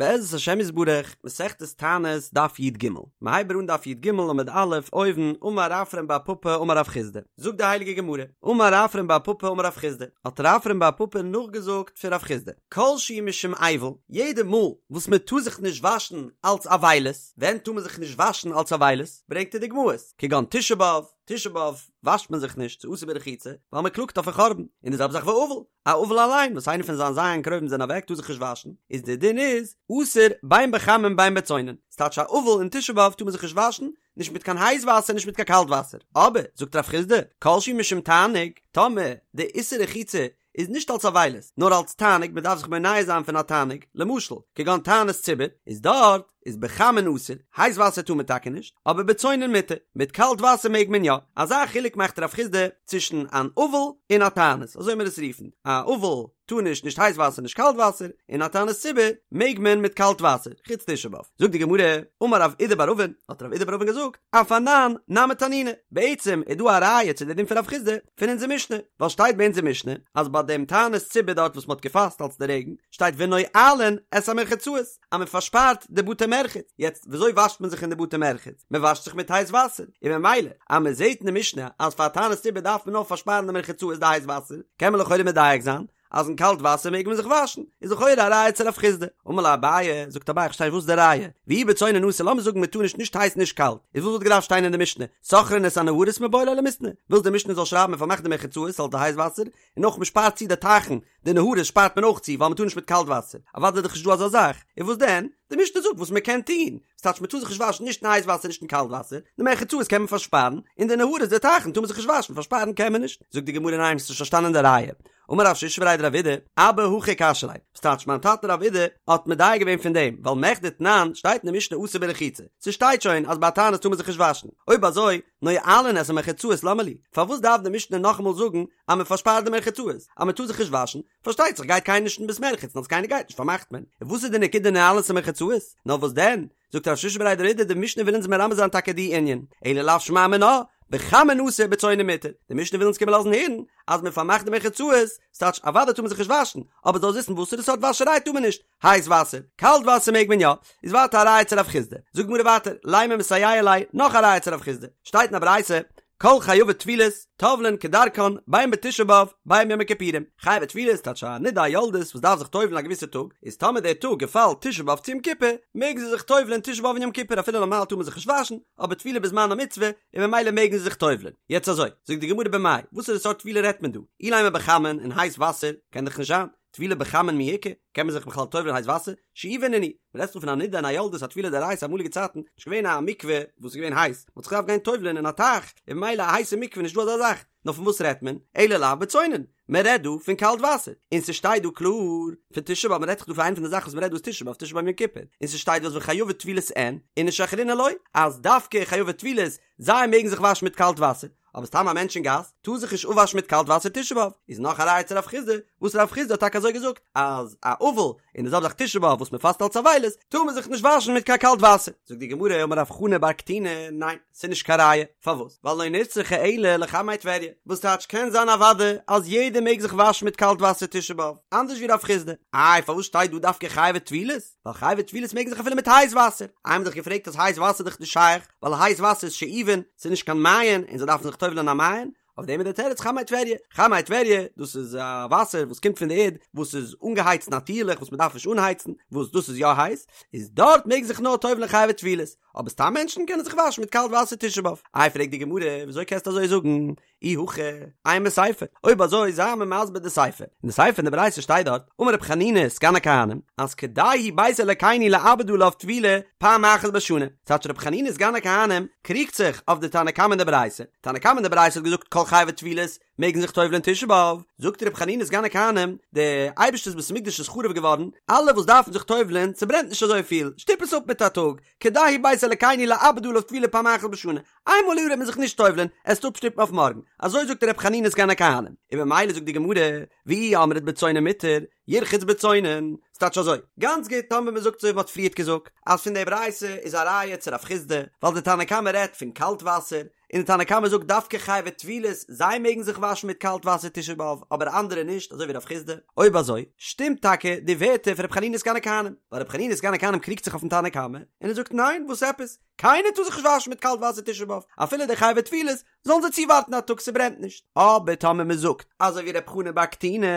בעזרת השם יתברך, מסכת תענית, דף י"ג. מ'הייבט אן דף י"ג עמוד א', אויבן, אמר רפרם בר פפא אמר רב חסדא. זאגט די הייליגע גמרא, אמר רפרם בר פפא אמר רב חסדא, האט רפרם בר פפא נאכגעזאגט פון רב חסדא, כל שהוא משום אבל, יעדע מאל וואס מען טאר זיך נישט וואשן אלץ אבילות, ווען טאר מען זיך נישט וואשן אלץ אבילות? ברענגט ער דוגמאות, כגון תשעה באב, תשעה באב וואשט מען זיך נישט, ס'איז אסור ברחיצה, ווייל מען קלאגט אויפן חורבן, און די זעלבע זאך ואבל, א אבל אליין וואס איינער פון זיין ז' קרובים זענען אוועק טאר זיך נישט וואשן, איז די דין איז אסור בין בחמין בין בצונן, ס'טייטש א אבל אין תשעה באב טאר מען זיך נישט וואשן, נישט מיט קיין הייס וואסער נישט מיט קיין קאלט וואסער, אבער זאגט רב חסדא, כל שהוא משום תענוג, טאמער די איסור רחיצה איז נישט אלס אבילות, נאר אלס תענוג, מען דארף זיך מונע זיין פון א תענוג, למשל, כגון תענית ציבור, איז דארט איז בחמין אסור, הייס וואסער טאר מען טאקע נישט, אבער בצונן מותר, מיט קאלט וואסער מעג מען יא, אזא חילוק מאכט רב חסדא צווישן אן אבל און א תענית, אזוי מיר עס רופן, א אבל טאר נישט נישט הייס וואסער נישט קאלט וואסער, און א תענית ציבור מעג מען מיט קאלט וואסער, חוץ תשעה באב. זאגט די גמרא, אמר רב אידי בר אבין, האט רב אידי בר אבין געזאגט, אף אנן נמי תנינא, בעצם איז דא א ראיה צו די דין פון רב חסדא פון אונזער משנה, ווייל שטייט ביי אונזער משנה אז ביי דעם תענית ציבור דארט וואס מען האט געפאסט אלס די רעגן, שטייט ונועלין את המרחצאות, אז מען פארשפארט די בתי מרחץ, יעצט וויאזוי וואשט מען זיך אין די בתי מרחץ? מען וואשט זיך מיט הייס וואסער, און ממילא אז מען זעט אין די משנה אז פאר תענית ציבור דארף מען נאר פארשפארן די מרחצאות די הייס וואסער, קען מען לכאורה מדייק זיין אז אין קאלט וואסער מעג מען זיך וואשן, איז לכאורה א ראיה צו רב חסדא. אמר ליה אביי, זאגט אביי איך פארשטיי נישט וואס איז די ראיה, ואי בצונן אסור לאמיר זאגן מען טאר נישט נישט הייס נישט קאלט, איז וואס וואלט געדארפט שטיין אין די משנה, סוכרין את הנהרות מיבעי ליה למיתנא, ווילסט די משנה זאל שרייבן מען פארמאכט די מרחצאות אלס די הייס וואסער, און אויך מען שפארט צו די טייכן, די נהרות שפארט מען אויך צו ווייל מען טאר נישט מיט קאלט וואסער, אוודאי איז דאך נישט דא אזא זאך, און וואס דען? די משנה זאגט וואס מען קען טון, ס'טייטש מען טאר זיך נישט וואשן נישט אין הייס וואסער נישט אין קאלט וואסער, די מרחצאות קען מען פארשפארן, און די נהרות די טייכן טאר מען זיך נישט וואשן פארשפארן קען מען נישט, זאגט די גמרא ניין האסט נישט פארשטאנען די ראיה, אמר רב שישא בריה דרב אידי, אבא הכי קשיא ליה, ס'טייטש מיין טאטע רב אידי האט מדייק געווען פון דעם, ווייל מכדי תנן שטייט אין די משנה אסור ברחיצה, ס'שטייט שוין אז ביי א תענית טאר מען זיך נישט וואשן, אויב אזוי נועלין את המרחצאות למה לי, פארוואס דארף די משנה נאכאמאל זאגן אז מען פארשפארט די מרחצאות, אז מען טאר זיך נישט וואשן, פארשטייט זיך גייט קיינער נישט אין בית מרחץ און אז קיינער גייט נישט פארמאכט מען, און וואס איז די נקודה נועלין את המרחצאות, נאר וואס דען, זאגט רב שישא בריה דרב אידי די משנה וויל אונז מרמז זיין טאקע די ענין, אלא לאו שמע מינה, בחמין אסור בצונן מותר, די משנה וויל אונז קומען לאזן הערן אז מען פארמאכט די מרחצאות, ס'טייטש אוודאי טאר מען זיך נישט וואשן, אבער זאלסט וויסן וואסערע סארט וואשעריי טאר מען נישט, הייס וואסער, קאלט וואסער מעג מען יא, איז ווייטער א ראיה צו רב חסדא, זאגט די גמרא ווייטער, לימא מסייע ליה, נאך א ראיה צו רב חסדא, שטייט אין א ברייתא, כל חייבי טבילות, טובלין כדרכן, בין בתשעה באב, בין ביום הכיפורים. חייבי טבילות, טייטש א נידה א יולדת וואס דארף זיך טובל'ן א געוויסע טאג, איז טאמער דער טאג געפאלט תשעה באב צו יום כיפור, מעגן זיי זיך טובל'ן תשעה באב און יום כיפור אפילו נארמאל טאר מען זיך נישט וואשן, אבער טבילה בזמנה מצוה, און ממילא מעגן זיי זיך טובל'ן. יעצט אזוי, זאגט די גמרא במאי, וואסערע סארט טבילה רעדט מען דא? אילימא בחמין, אין הייס וואסער, קען דאך נישט זיין. טבילה בחמין מי איכא, קען מען זיך בכלל טובל'ן אין הייס וואסער? שאובין נינהו, מען רעדט דא פון א נידה און א יולדת א טבילה דאורייתא אמאליגע צייטן, נישט געווען א מקווה וואס איז געווען הייס, מען האט זיך געדארפט גיין טובל'ן אין א טייך, און ממילא א הייסע מקווה נישט דא אזא זאך, נאר פון וואס רעדט מען? אלא לאו בצונן, מען רעדט דא פון קאלט וואסער, און ס'שטייט דא קלאר פון תשעה באב, מען רעדט דאך דא פון איינע פון די זאכן וואס מען רעדט דא איז תשעה באב, תשעה באב יום כיפור, און ס'שטייט דא אז וחייבי טבילות אין, איניש אחרינא לא, אז דווקא חייבי טבילות, זיי מעגן זיך וואשן מיט קאלט וואסער, אבער סתם א מענטש אין גאס טאר זיך נישט אפוואשן מיט קאלט וואסער תשעה באב, איז נאך א ראיה צו רב חסדא, וואס רב חסדא האט טאקע אזוי געזאגט, אז א אבל און די זעלבע זאך תשעה באב וואס מען פאסט אלץ אבילות, טאר מען זיך נישט וואשן מיט קיין קאלט וואסער. זאגט די גמרא אמר רב חנא בר קטינא, ניין, ס'איז נישט קיין ראיה, פארוואס? ווייל לא נצרכה אלא לחמי טבריה, וואס טייטש קען זיין אוודאי אז יעדער מעג זיך וואשן מיט קאלט וואסער תשעה באב, אנדערש ווי רב חסדא, איי פארוואס שטייט דא דווקא חייבי טבילות? ווייל חייבי טבילות מעגן זיך אפילו מיט הייס וואסער, איי מ'האט דאך געפרעגט אז הייס וואסער איז דאך נישט שייך, ווייל הייס וואסער איז שאובין, ס'איז נישט קיין מעיין, און זיי דארפן זיך טובל'ען אין א מעיין, אויף דעם איז דער תירוץ חמי טבריה, חמי טבריה, דאס איז א וואסער וואס קומט פון די ערד, וואס איז אנגעהייצט נאטירליך, וואס מ'דארף נישט אנהייצן, וואס דאס איז יא הייס, איז דארט מעגן זיך נאר טובל'ען חייבי טבילות, אבער סתם מענטשן קענען זיך וואשן מיט קאלט וואסער תשעה באב. איי פרעגט די גמרא, וויאזוי קענסטו אזוי זאגן? אי הכי, אימא סיפא, אויב אזוי זיי מיר מסביר די סיפא, אין די סיפא אין די ברייתא שטייט דארט, אמר רבי חנינא סגן הכהנים, אז כדאי הוא בית אלקינו לאבד עליו טבילה פעם אחת בשנה, ס'טייטש רבי חנינא סגן הכהנים קריגט זיך אויף די תנא קמא אין די ברייתא, תנא קמא אין די ברייתא האט געזאגט כל חייבי טבילות מעגן זיך טובל'ען תשעה באב, זאגט רבי חנינא סגן הכהנים, די אייבערשטער'ס בית המקדש איז חרוב געווארן, אלע וואס דארפן זיך טובל'ען, ס'ברענט נישט אזויפיל, שטופ עס אפ מיט א טאג, כדאי הוא בית אלקינו לאבד עליו טבילה פעם אחת בשנה, איינמאל א יאר וועט מען זיך נישט טובל'ען, עסט אפשטופן אויף מארגן, אזוי זאגט ר' חנינא סגן הכהנים, און ממילא זאגט די גמרא, ואי אמרת בצונן מותר, ירחץ בצונן, ס'טייטש אזוי, גאנץ גוט טאמער מען זאגט אזוי ווי מ'האט פריערט געזאגט, אז פון די ברייתא איז א ראיה צו רב חסדא, ווייל די תנא קמא רעדט פון קאלט וואסער, און די תנא קמא זאגט דווקא חייבי טבילות זיי מעגן זיך וואשן מיט קאלט וואסער תשעה באב אבער אנדערע נישט אזוי ווי רב חיסדא, אויב אזוי שטימט טאקע די ווערטער פון ר' חנינא סגן הכהנים, ווייל ר' חנינא סגן הכהנים קריגט זיך אויפן תנא קמא און ער זאגט ניין וואס עפעס קיינער טאר זיך נישט וואשן מיט קאלט וואסער תשעה באב אפילו די חייבי טבילות זאלן זיי צואווארטן א טאג ס'ברענט נישט, אבער טאמער מ'זאגט אזוי ווי ר' חנן בר קטינא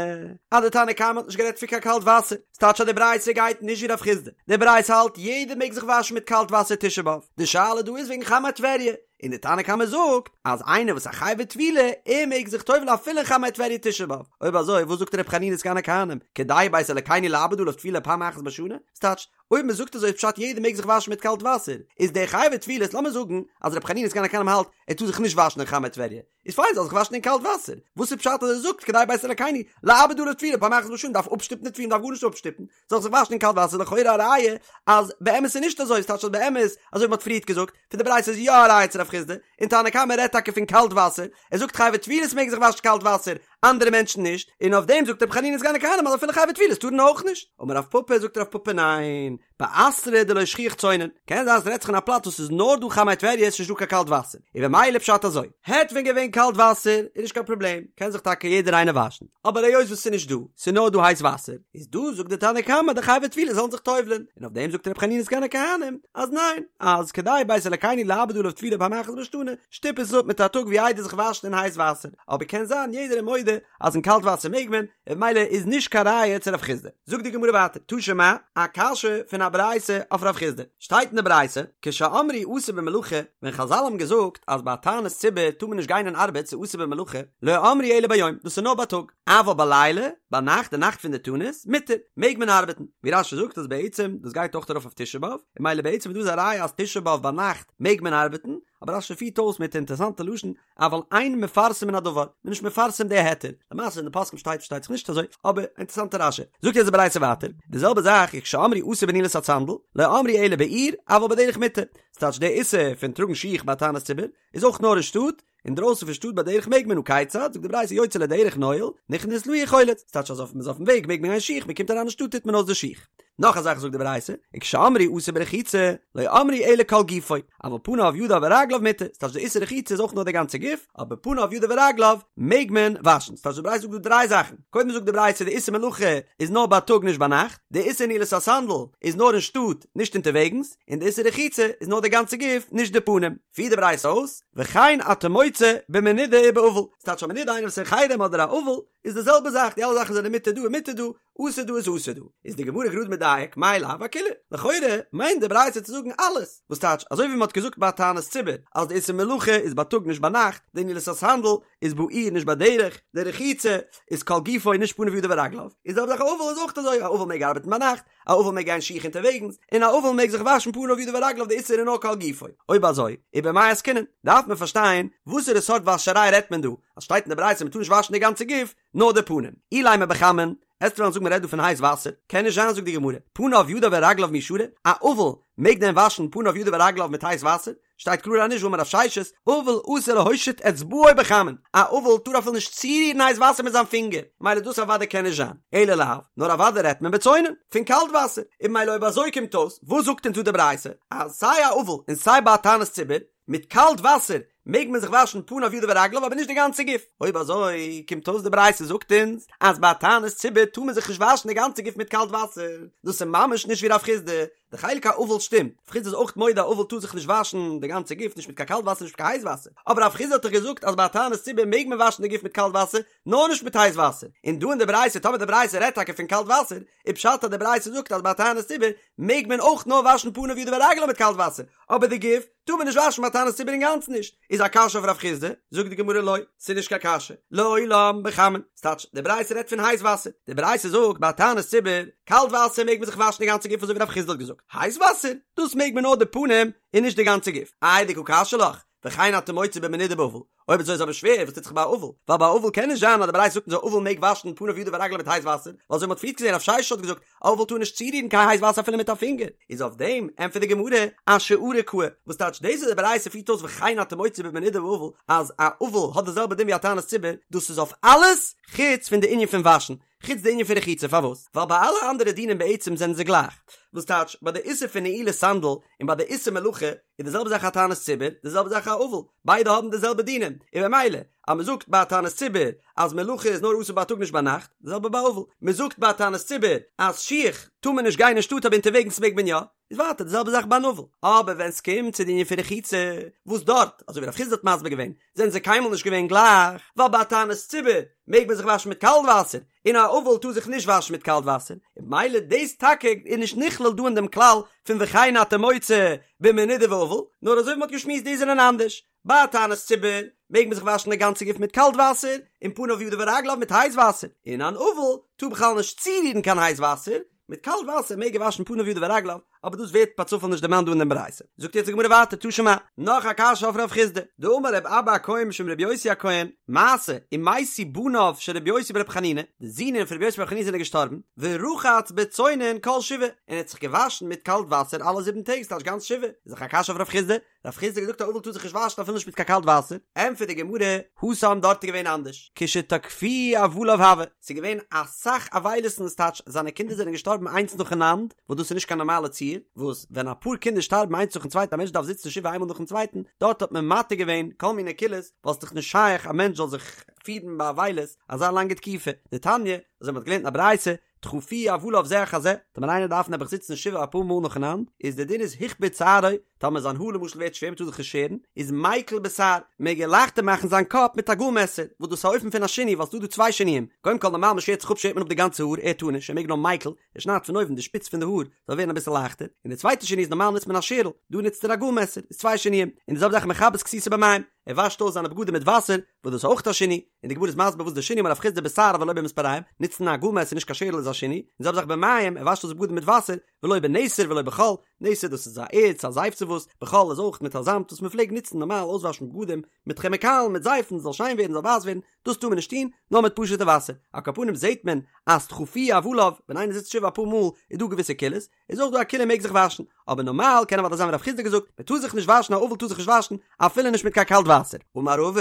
אז די תנא קמא האט נישט גערעדט פון קיין קאלט וואסער, ס'טייטש אז די ברייתא גייט נישט ווי רב חיסדא, די ברייתא האלט יעדער מעג זיך וואשן מיט קאלט וואסער תשעה באב, די שאלה דא איז וועגן חמי טבריה, און די תנא קמא זאגט אז איינער וואס א חייבי טבילה ער מעג זיך טובל'ן אפילו אין חמי טבריה תשעה באב, אויב אזוי וואס זאגט ר' חנינא סגן הכהנים כדאי בית אלקינו לאבד עליו טבילה פעם אחת בשנה, ס'טייטש אויב מען זאגט אזוי איז פשט יעדער מעג זיך וואשן מיט קאלט וואסער, איז דער חייבי טבילות לאמיר זאגן אז ר' חנינא סגן הכהנים האלט ער טאר זיך נישט וואשן אין חמי טבריה, איז פיין זאל זיך וואשן אין קאלט וואסער, וואס איז פשט אז ער זאגט כדאי בית אלקינו לאבד עליו טבילה פעם אחת בשנה דארף אפשטופן די טבילה דארף גארנישט אפשטופן, זאל זיך וואשן אין קאלט וואסער לכאורה א ראיה אז באמת איז נישט אזוי, ס'טייטש אז באמת אזוי ווי מ'האט פריערט געזאגט פון די ברייתא איז יא א ראיה צו רב חיסדא, און תנא קמא רעדט טאקע פון קאלט וואסער, ער זאגט חייבי טבילות מעגן זיך וואשן קאלט וואסער, אנדערע מענטשן נישט, און אויף דעם זאגט רבי חנינא סגן הכהנים אז אפילו חייבי טבילות טארן אויך נישט. אמר רב פפא זאגט רב פפא ניין, באתרא דלא שכיח צונן, קען זיין ס'רעדט זיך אין א פלאץ וואס ס'איז נאר דא חמי טבריה ס'איז נישט דא קיין קאלט וואסער, און במילא פשט אזוי, העט ווען געווען קאלט וואסער איז נישט קיין פראבלעם, קען זיך טאקע יעדער איינער וואשן, אבער היות וואס ס'איז נישט דא, ס'איז נאר דא הייס וואסער, איז דא זאגט די תנא קמא די חייבי טבילה זאלן זיך טובל'ען, און אויף דעם זאגט רבי חנינא סגן הכהנים אז ניין, אז כדאי בית אלקינו לאבד עליו טבילה פעם אחת בשנה, שטופ עס אפ מיט א טאג ווי איידער זיך וואשן אין הייס וואסער, אבער קען זיין יעדער איז מודה אז אין קאלט וואסער מעג מען, און במילא איז נישט קיין ראיה צו רב חיסדא. זאגט די גמרא ווייטער, תא שמע, א קשיא פון א ברייתא אויף רב חיסדא, שטייט אין די ברייתא, כשאמרו אסור במלאכה, ווען חזל האבן געזאגט אז ביי א תענית ציבור טאר מען נישט גיין אין ארבעט ס'איז אסור במלאכה, לא אמרו אלא ביום, דאס איז נאר בייטאג, אבל בלילה, ביינאכט די נאכט פון די תענית, מותר, מעג מען ארבעטן, ווי רש"י זאגט אז בעצם דאס גייט אויך ארויף אויף תשעה באב, און במילא בעצם איז דא א ראיה אז תשעה באב ביינאכט מעג מען ארבעטן, אבער רש"י פירט אויס מיט אינטערעסאנטע לשון, אבל אין מפרסמין הדבר, מ'איז נישט מפרסם די היתר, למעשה אין די פוסקים שטייט פארשטייט זיך נישט אזוי, אבער אינטערעסאנטע רש"י. זאגט יעצט די ברייתא ווייטער, די זעלבע זאך וכשאמרו אסור בנעילת הסנדל, לא אמרו אלא בעיר, אבל בדרך מותר, ס'טייטש די איסור פון טראגן שיך ביי תענית ציבור, איז אויך נאר אין שטאט, אינדרויסן פון שטאט בדרך מעג מען הא כיצד, זאגט די ברייתא יוצא לדרך נועל, נכנס לעיר חולץ, ס'טייטש אז אויף מ'איז אויפן וועג מעג מען גיין שיך, מ'קומט אריין אין שטאט טוט מען אויס די שיך. נאך א זאך זאגט די ברייתא, וכשאמרו אסור ברחיצה, לא אמרו אלא כל גופו, אבל פניו ידיו ורגליו מותר, ס'טייטש די איסור רחיצה איז אויך נאר די גאנצע גוף, אבער פניו ידיו ורגליו מעג מען וואשן, ס'טייטש די ברייתא זאגט דא דריי זאכן, קודם זאגט די ברייתא די איסור מלאכה איז נאר בייטאג נישט ביינאכט, די איסור נעילת הסנדל איז נאר אין שטאט נישט אונטערוועגנס, און די איסור רחיצה איז נאר די גאנצע גוף נישט די פנים. פירט די ברייתא אויס, וכן אתה מוצא במנודה ובאבל, ס'טייטש א מנודה איינער וואס איז אין חרם אדער א אבל איז די זעלבע זאך, די אלע זאכן זענען מותר דא און מותר דא, אסור דא איז אסור דא, איז די גמרא גראד מדייק, מאי לאו אכולהו, לכאורה מיינט די ברייתא צו זאגן אלעס, וואס טייטש אזוי ווי מען האט געזאגט ביי תענית ציבור אז די איסור מלאכה איז בייטאג נישט ביינאכט, די נעילת הסנדל איז בעיר נישט בדרך, די רחיצה איז כל גופו נישט פניו ידיו ורגליו, איז די זעלבע זאך א אבל איז אויך אזוי, א אבל מעג ארבעטן ביינאכט, א אבל מעג גיין שיך אונטערוועגנס, און א אבל מעג זיך וואשן פניו ידיו ורגליו די איסור איז נאר כל גופו, אויב אזוי, ובמאי עסקינן, דארף מען פארשטיין וואסערע סארט וואשעריי רעדט מען דא, אז שטייט אין די ברייתא מען טאר נישט וואשן די גאנצע גוף, נאר די פנים. אילימא בחמין, עסט וועלן זאגן מען רעדט דא פון הייס וואסער, קען נישט זיין זאגט די גמרא, פניו ידיו ורגליו מי שרי, א אבל מעג דען וואשן פניו ידיו ורגליו מיט הייס וואסער? שטייט קלאר אז נישט והאמר רב ששת, אבל אסור להושיט אצבעו בחמין, א אבל טאר אפילו נישט צורירן הייס וואסער מיט זיין פינגער, מילא דאס אוודאי קען נישט זיין, אלא לאו, נאר אוודאי רעדט מען בצונן, פון קאלט וואסער, און מילא אויב אזוי קומט אויס, וואס זאגט אונז דא די ברייתא, אז סיי א אבל און סיי ביי א תענית ציבור, מיט קאלט וואסער מעג מען זיך וואשן פניו ידיו ורגליו אבער נישט די גאנצע גוף, אויב אזוי קומט אויס די ברייתא זאגט אונז אז ביי א תענית ציבור טאר מען זיך נישט וואשן די גאנצע גוף מיט קאלט וואסער, דאס איז ממש נישט ווי רב חיסדא, די חלק האבל שטימט, רב חיסדא איז אויך מודה א אבל טאר זיך נישט וואשן די גאנצע גוף נישט מיט קיין קאלט וואסער נישט מיט קיין הייס וואסער, אבער רב חיסדא האט דאך געזאגט אז ביי א תענית ציבור מעג מען וואשן די גוף מיט קאלט וואסער נאר נישט מיט הייס וואסער, און דא אין די ברייתא טאמער די ברייתא רעדט טאקע פון קאלט וואסער איז פשט אז די ברייתא זאגט אז ביי א תענית ציבור מעג מען אויך נאר וואשן פניו ידיו ורגליו מיט קאלט וואסער, אבער די גוף טאר מען נישט וואשן ביי תענית ציבור אינגאנצן נישט, איז א קשיא אויף רב חיסדא? זאגט די גמרא לא, ס'איז נישט קיין קשיא, לעולם בחמין, ס'טייטש די ברייתא רעדט פון הייס וואסער, די ברייתא זאגט ביי תענית ציבור, קאלט וואסער מעג מען זיך וואשן די גאנצע גוף אזוי ווי רב חיסדא האט געזאגט, הייס וואסער, דאס מעג מען נאר די פנים און נישט די גאנצע גוף, איי דקא קשיא לך, וכן אתה מוצא במנודה ובאבל. אויב אזוי איז אבער שווער וואס טוט זיך ביי א אבל, ווייל ביי א אבל קען נישט זיין אז די ברייתא זאגט אונז א אבל מעג וואשן פניו ידיו ורגליו מיט הייס וואסער, ווייל אזוי ווי מ'האט פריערט געזען רב ששת האט געזאגט א אבל טאר נישט צורירן קיין הייס וואסער אפילו מיט א פינגער, איז אויף דעם ענטפערט די גמרא אשארא קאי, וואס טייטש דאס וואס די ברייתא פירט אויס וכן אתה מוצא במנודה ואבל אז א אבל האט די זעלבע דין ווי א תענית ציבור, דאס איז אויף אלעס חוץ פון די ענין פון וואשן, חוץ די ענין פון רחיצה, פארוואס? ווייל ביי אלע אנדערע דינים בעצם זענען זיי גלייך, וואס טייטש ביי די איסור פון נעילת סנדל און ביי די איסור מלאכה איז די זעלבע זאך א תענית ציבור, די זעלבע זאך א אבל, ביידע האבן די זעלבע דינים, און במילא אז מען זאגט ביי א תענית ציבור אז מלאכה איז נאר אסור בייטאג נישט ביינאכט, די זעלבע ביי אבל, מען זאגט ביי א תענית ציבור אז שיך טאר מען נישט גיין אין שטאט אבער אונטערוועגנס מעג מען יא, איז ווייטער די זעלבע זאך ביי אן אבל, אבער ווען סקומט צו די ענין פון רחיצה, וואס דארט, אזוי ווי רב חסדא האט מסביר געווען, זענען זיי קיינמאל נישט געווען גלייך, ווייל ביי א תענית ציבור מעג מען זיך וואשן מיט קאלט וואסער, און א אבל טאר זיך נישט וואשן מיט קאלט וואסער, און במילא דאס טאקע איז נישט נכלל דא אין דעם כלל פון וכן אתה מוצא במנודה ואבל, נאר אזוי ווי מ'האט געשמועסט די זענען אנדערש, ביי א תענית ציבור מעג מען זיך וואשן די גאנצע גוף מיט קאלט וואסער, און פניו ידיו ורגליו מיט הייס וואסער, און אן אבל טאר בכלל נישט צורירן קיין הייס וואסער, מיט קאלט וואסער מעג ער וואשן פניו ידיו ורגליו, אבער דאס ווערט פאר צופאל נישט דערמאנט דא אין דעם ברייתא. זאגט יעצט די גמרא ווייטער תא שמע, נאך א קשיא אויף רב חסדא, דאמר רב אבא הכהן משום רבי יוסי הכהן, מעשה, ומתו בניו של רבי יוסי ברבי חנינא, די זינען פון רבי יוסי ברבי חנינא זענען געשטארבן, ורחץ בצונן כל שבעה, און ער האט זיך געוואשן מיט קאלט וואסער אלע זיבן טעג, ס'טייטש גאנץ שבעה, איז דאך א קשיא אויף רב חסדא, רב חסדא האט געזאגט א אבל טאר זיך נישט וואשן אפילו נישט מיט קיין קאלט וואסער, ענטפערט די גמרא, התם דארט איז געווען אנדערש, כשתכפוהו אבליו הוה, ס'איז געווען אסאך אבילות ס'טייטש זיינע קינדער זענען געשטארבן איינס נאכאנאנד, וואס דאס איז נישט קיין נארמאלע ציור, וואס ווען אפאר קינדער שטארבן איינס נאכן צווייטן א מענטש דארף זיצן שבעה איינמאל נאכן צווייטן, דארט האט מען מתיר געווען כל מיני קולות, ווייל ס'איז דאך נישט שייך א מענטש זאל זיך פירן באבילות אזא לאנגע תקופה, דתניא, אזוי מ'האט געלערנט אין א ברייתא, תכפוהו אבליו זה אחר זה, טאמער איינער דארף נעבעך זיצן שבעה אפאר מאל נאכאנאנד, איז די דין איז הכביד שערו, טאמער זיין האר למשל ווערט שווער מ'טאר זיך נישט שערן, איז מיקל בתער, מעג ער לייכטער מאכן זיין קאפ מיט א גאל מעסער, וואס דאס איז א אופן פון א שינוי ווייל ס'דא דא צוויי שינויים, קודם כל נארמאל מ'שערט זיך אפ שערט מען אפ די גאנצע האר, ער טאר נישט, ער מעג נאר מיקל, ער שניידט פון אויבן די שפיץ פון די האר זאל ווערן אביסל לייכטער, און די צווייטע שינוי איז נארמאל נוצט מען א שערל, דא נוצט ער א גאל מעסער, איז צוויי שינויים, און די זעלבע זאך מכבס כסותו במים, ער וואשט אויס זיינע בגדים מיט וואסער, וואס דאס איז אויך א שינוי, און די גמרא איז מסביר וואס די שינוי אמר רב חסדא בתער אבל לא במספריים, נוצן א גאל מעסער נישט קיין שערל איז א שינוי, און די זעלבע זאך במים, ער וואשט אויס בגדים מיט וואסער, ולא בנתר ולא בחול, נתר דאס איז א ערץ א זייף צו וואס, בחול איז אויך מיט א זאמד וואס מען פלעגט נוצן נארמאל אויסוואשן בגדים מיט כעמיקאלן מיט זייפן זאל שיין ווערן זאל ווייס ווערן, דאס טאר מען נישט טון, נאר מיט פשוטע וואסער, על כל פנים זעט מען אז תכפוהו אבליו, ווען איינער זיצט שבעה אפאר מאל איז דא געוויסע קולות, איז אויך דא א קולא מעג זיך וואשן, אבער נארמאל קען אוודאי זיין ווי רב חסדא געזאגט, מען טאר זיך נישט וואשן א אבל טאר זיך נישט וואשן אפילו נישט מיט קיין קאלט וואסער. אמר רבא,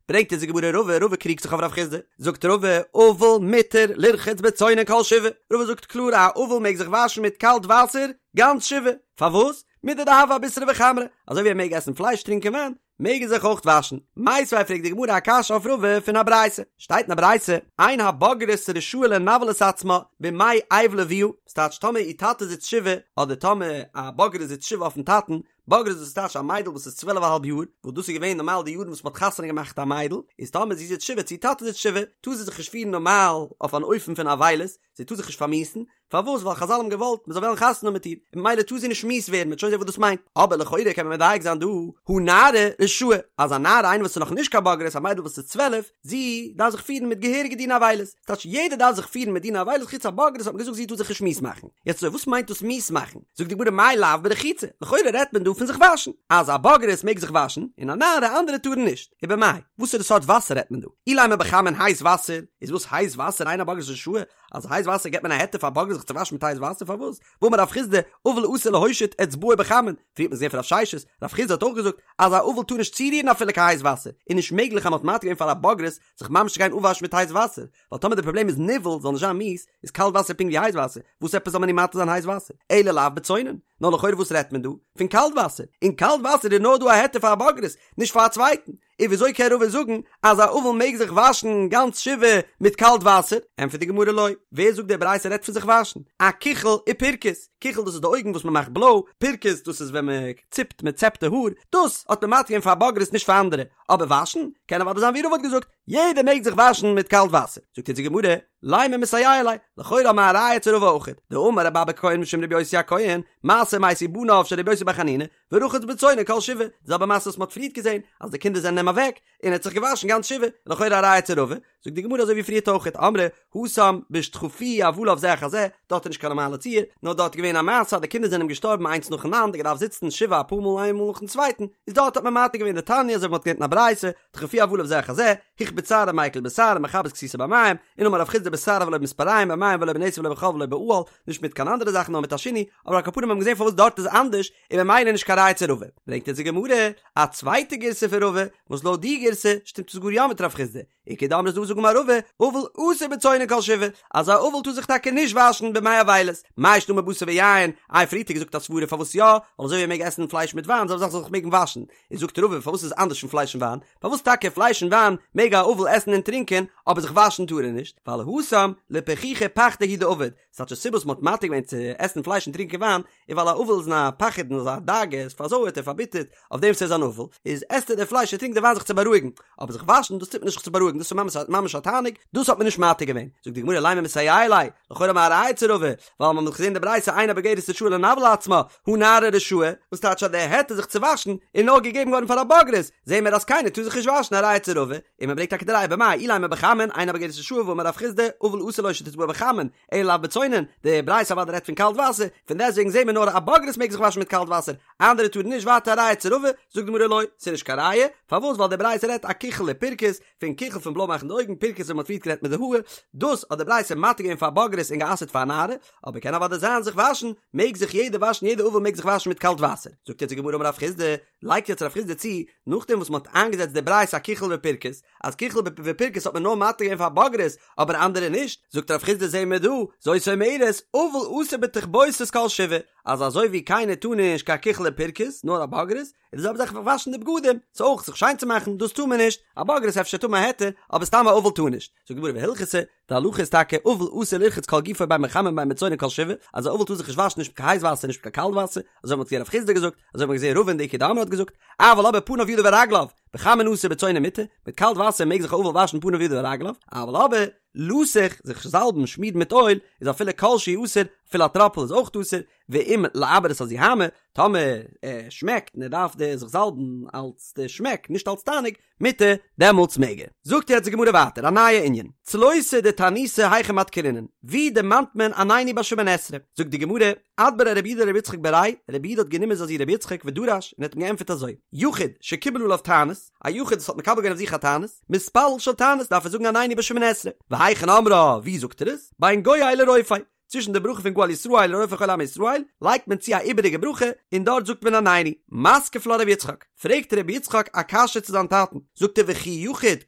ברענגט אונז די גמרא רבא, רבא קריגט זיך אויף רב חסדא, זאגט רבא, אבל מותר לרחוץ בצונן כל שבעה, רבא זאגט קלאר א אבל מעג זיך וואשן מיט קאלט וואסער גאנץ שבעה, פארוואס? מידי דהוה אבישרא וחמרא, אזוי ווי ער מעג עסן פלייש טרינקען וויין, מעג ער זיך אויך וואשן. מיתיבי פרעגט די גמרא א קשיא אויף רבא פון א ברייתא. שטייט אין א ברייתא, אין הבוגרת רשאה לנוול את עצמה בימי אבל אביה, ס'טייטש טאמער איר טאטע זיצט שבעה, אדער טאמער א בוגרת זיצט שבעה אויפן טאטן, בוגרת דאס טייטש א מיידל וואס איז צוועלף א האלב יאר, וואס דאס איז געווען נארמאל די יארן וואס מ'האט חתונה געמאכט א מיידל, איז טאמער זי זיצט שבעה צו איר טאטע זיצט שבעה, טאר זי זיך נישט פירן נארמאל אויף אן אופן פון אבילות, זי טאר זיך נישט פארמיאוסן, פארוואס? ווייל חזל האבן געוואלט מען זאל וועלן חתונה האבן מיט איר, און ממילא טאר זי נישט מיאוס ווערן, מ'וועט שוין זען וואס דאס מיינט. אבער לכאורה קען מען מדייק זיין דא, הא נערה רשאה, אז א נערה איינער וואס איז נאך נישט קיין בוגרת, א מיידל וואס איז 12, זי דארף זיך פירן מיט געהעריגע דיני אבילות, ס'טייטש יעדער דארף זיך פירן מיט דיני אבילות חוץ א בוגרת האט מען געזאגט זי טאר זיך נישט מיאוס מאכן. יעצט אזוי וואס מיינט דאס מיאוס מאכן? זאגט די גמרא מאי לאו ברחיצה, לכאורה רעדט מען דא פון זיך וואשן, אז א בוגרת מעג זיך וואשן, און א נערה אנדערע טארן נישט, ובמאי, וואסערע סארט וואסער רעדט מען דא? אילימא בחמין הייס וואסער, איז וואס הייס וואסער אין הבוגרת רשאה, אז הייס וואסער געבט מען א היתר פאר בוגרת זיך צו וואשן מיט הייס וואסער פארוואס? והאמר רב חסדא אבל אסור להושיט אצבעו בחמין, פריער האט מען געזען פון רב ששת, רב חסדא האט אויך געזאגט אז א אבל טאר נישט צורירן אפילו קיין הייס וואסער, איז נישט מעגליך אז מען האט מתיר געווען פאר א בוגרת זיך ממש צו גיין אפוואשן מיט הייס וואסער, ווייל טאמער די פראבלעם איז ניוול זאל נישט זיין מיאוס, איז קאלט וואסער פונקט ווי הייס וואסער, וואס עפעס זאל מען איר מתיר זיין הייס וואסער? אלא לאו בצונן, נאר לכאורה וואס רעדט מען דא? פון קאלט וואסער, אין קאלט וואסער איז נאר דא א היתר פאר א בוגרת, נישט פאר א צווייטן, און וויאזוי קען רבא זאגן אז א אבל מעג זיך וואשן גאנץ שבעה מיט קאלט וואסער? ענטפערט די גמרא לא, ווער זאגט די ברייתא רעדט פון זיך וואשן? אכיחול ופירכוס, כיחול דאס איז די אויגן וואס מען מאכט בלוי, פירכוס דאס איז ווען מען ציפט מען צעפט די האר, דאס האט מען מתיר געווען פאר א בוגרת נישט פאר אנדערע, אבער וואשן קען אוודאי זיין ווי רבא האט געזאגט, יעדער מעג זיך וואשן מיט קאלט וואסער. זאגט אונז די גמרא, לימא מסייע ליה, לכאורה האבן מיר א ראיה צו רבא אויכעט, דאמר רבי אבא הכהן משום רבי יוסי הכהן, מעשה ומתו בניו של רבי יוסי בר חנינא, ורחץ בצונן כל שבעה, די זעלבע מעשה וואס מ'האט פריערט געזען, אז די קינדער זענען אים אוועק, און ער האט זיך געוואשן גאנץ שבעה, לכאורה א ראיה צו רבא, זאגט די גמרא אזוי ווי פריערט אויכעט, אמרי התם בשדחפוהו אבליו זה אחר זה, דארט איז נישט קיין נארמאלע ציור, נאר דארט איז געווען א מעשה אז די קינדער זענען אים געשטארבן איינס נאכאנאנד, ער געדארפט זיצן שבעה אפאר מאל איין מאל נאכן צווייטן, איז דארט האט מען מתיר געווען דתניא אזוי ווי מ'האט געלערנט אין א ברייתא, דחפוהו אבליו זה אחר זה, הכביד שערו מיקל בשער מכבס כסותו במים, און אמר רב חסדא בשער אבל לא במספריים במים ולא בנתר ולא בחול ולא באהל, נישט מיט קיין אנדערע זאכן נאר מיט א שינוי, אבער על כל פנים האט מען געזען פארוואס דארט איז אנדערש, און ממילא נישט קיין ראיה צו רבא. ברענגט אונז די גמרא א צווייטע גירסא פון רבא, וואס לויט די גירסא שטימט עס גאר יא מיט רב חסדא, איכא דאמרי ס'דא וואס זאגן אמר רבא, אבל אסור בצונן כל שבעה, אז א אבל טאר זיך טאקע נישט וואשן בימי אבילות, מאי שנא מבשר ויין, איי פריערט האט געזאגט א סברה פארוואס יא, ווייל אזוי ווי ער מעג עסן פלייש מיט וויין זאל ער זיך מעגן וואשן, איז זאגט רבא פארוואס איז אנדערש פון פלייש און וויין, פארוואס טאקע פלייש און וויין מעג א אבל עסן און טרינקען אבער זיך וואשן טאר ער נישט, ווייל התם לפכוחי פחדיה הוא דעביד, ס'טייטש די סיבה וואס מ'האט מתיר געווען צו עסן פלייש און טרינקען וויין איז ווייל א אבל איז אין א פחד און אזא דאגה, ער איז פארזויערט און פארביטערט אויף דעם וואס ער איז אן אבל, איז עסט ער די פלייש און טרינקט די וויין זיך צו בארואיגן, אבער זיך וואשן דאס טוט מען נישט זיך צו בארואיגן דאס איז ממש א תענוג, דאס האט מען נישט מתיר געווען, זאגט די גמרא לימא מסייע ליה, לכאורה האבן מיר א ראיה צו רבא, ווייל מ'האט געזען די ברייתא אין הבוגרת רשאה לנוול עצמה, הא נערה רשאה, וואס טייטש אז די היתר זיך צו וואשן איז נאר געגעבן געווארן פאר א בוגרת, זעהן מיר אז קיינער טאר זיך נישט וואשן א ראיה צו רבא, און מען ברענגט טאקע די ראיה במאי אילימא בחמין אין הבוגרת רשאה והאמר רב חסדא אבל אסור לו שתטבעו בחמין אלא לאו בצונן, די ברייתא אוודאי רעדט פון קאלט וואסער, פון דעסטוועגן זעהן מיר נאר א בוגרת מעג זיך וואשן מיט קאלט וואסער, אנדערע טארן נישט ווייטער א ראיה צו רבא, זאגט די גמרא לא, ס'איז נישט קיין ראיה, פארוואס ווייל די ברייתא רעדט אכיחול ופירכוס, פון כיחול פון בלוי מאכן די אויגן, פירכוס ווי מ'האט פריערט גערעדט מיט די האר, דאס האט די ברייתא מתיר געווען פאר בוגרת און גע'אסר'ט פאר א נערה, אבער קען אוודאי זיין זיך וואשן, מעג זיך יעדער וואשן יעדער אבל מעג זיך וואשן מיט קאלט וואסער, זאגט יעצט די גמרא אמר רב חסדא, לייגט יעצט רב חסדא צו, נאכדעם וואס מ'האט איינגעזעצט די ברייתא אכיחול ופירכוס, אז כיחול ופירכוס האט מען נאר מתיר געווען פאר בוגרת, אבער אנדערע נישט, זאגט רב חסדא זעהן מיר דא, זאת אומרת, אבל אסור בתכבוסת כל שבעה, אז אזוי ווי קיינער טאר נישט קיין כיחול ופירכוס, נאר א בוגרת, איז די זעלבע זאך וואשן די בגדים, ס'איז אויך זיך שיין צו מאכן, דאס טאר מען נישט, א בוגרת אפשר טאר מען א היתר, אבער סתם א אבל טאר נישט. זאגט די גמרא והלכתא, די הלכה איז טאקע אבל אסור לרחוץ כל גופו בין בחמין בין בצונן כל שבעה, אז א אבל טאר זיך נישט וואשן נישט מיט קיין הייס וואסער נישט מיט קיין קאלט וואסער, אזוי האט מען געזען רב חסדא געזאגט, אזוי האט מען געזען רבא און די איכא דאמרי האט געזאגט, אבל אבער פניו ידיו ורגליו, בחמין אסור בצונן מותר, מיט קאלט וואסער מעג זיך א אבל וואשן פניו ידיו ורגליו, אבל אבער לסוך, זיך זאלבן, שמירן מיט אויל, איז אפילו כל שהוא אסור, אפילו א טראפל איז אויך אסור, ואם לעבר את הזוהמא, טאמער ער שמעקט און ער דארף די זיך זאלבן אלץ די שמעק נישט אלץ תענוג, מותר, דעמאלטס מעג ער. זאגט יעצט די גמרא ווייטער א נייע ענין, צלותא דתעניתא היכא מדכרינן, ווי דערמאנט מען עננו ביי שמונה עשרה? זאגט די גמרא, אדבריה רב יהודה לרבי יצחק בריה, רב יהודה האט גענומען זיין זון רבי יצחק ודרש און האט אים געענטפערט אזוי, יחיד שקיבל עליו תענית, א יחיד וואס האט מקבל געווען אויף זיך א תענית, מתפלל של תענית דארף ער זאגן עננו ביי שמונה עשרה, והיכן אומרה, ווי זאגט ער עס? בין גואל לרופא, צווישן די ברכה פון גואל ישראל און רופא חולי עמו ישראל לייגט מען צו א איבעריגע ברכה און דארט זאגט מען עננו. מתקיף לה רבי יצחק, פרעגט רבי יצחק א קשיא צו זיין טאטן, זאגט ער וכי יחיד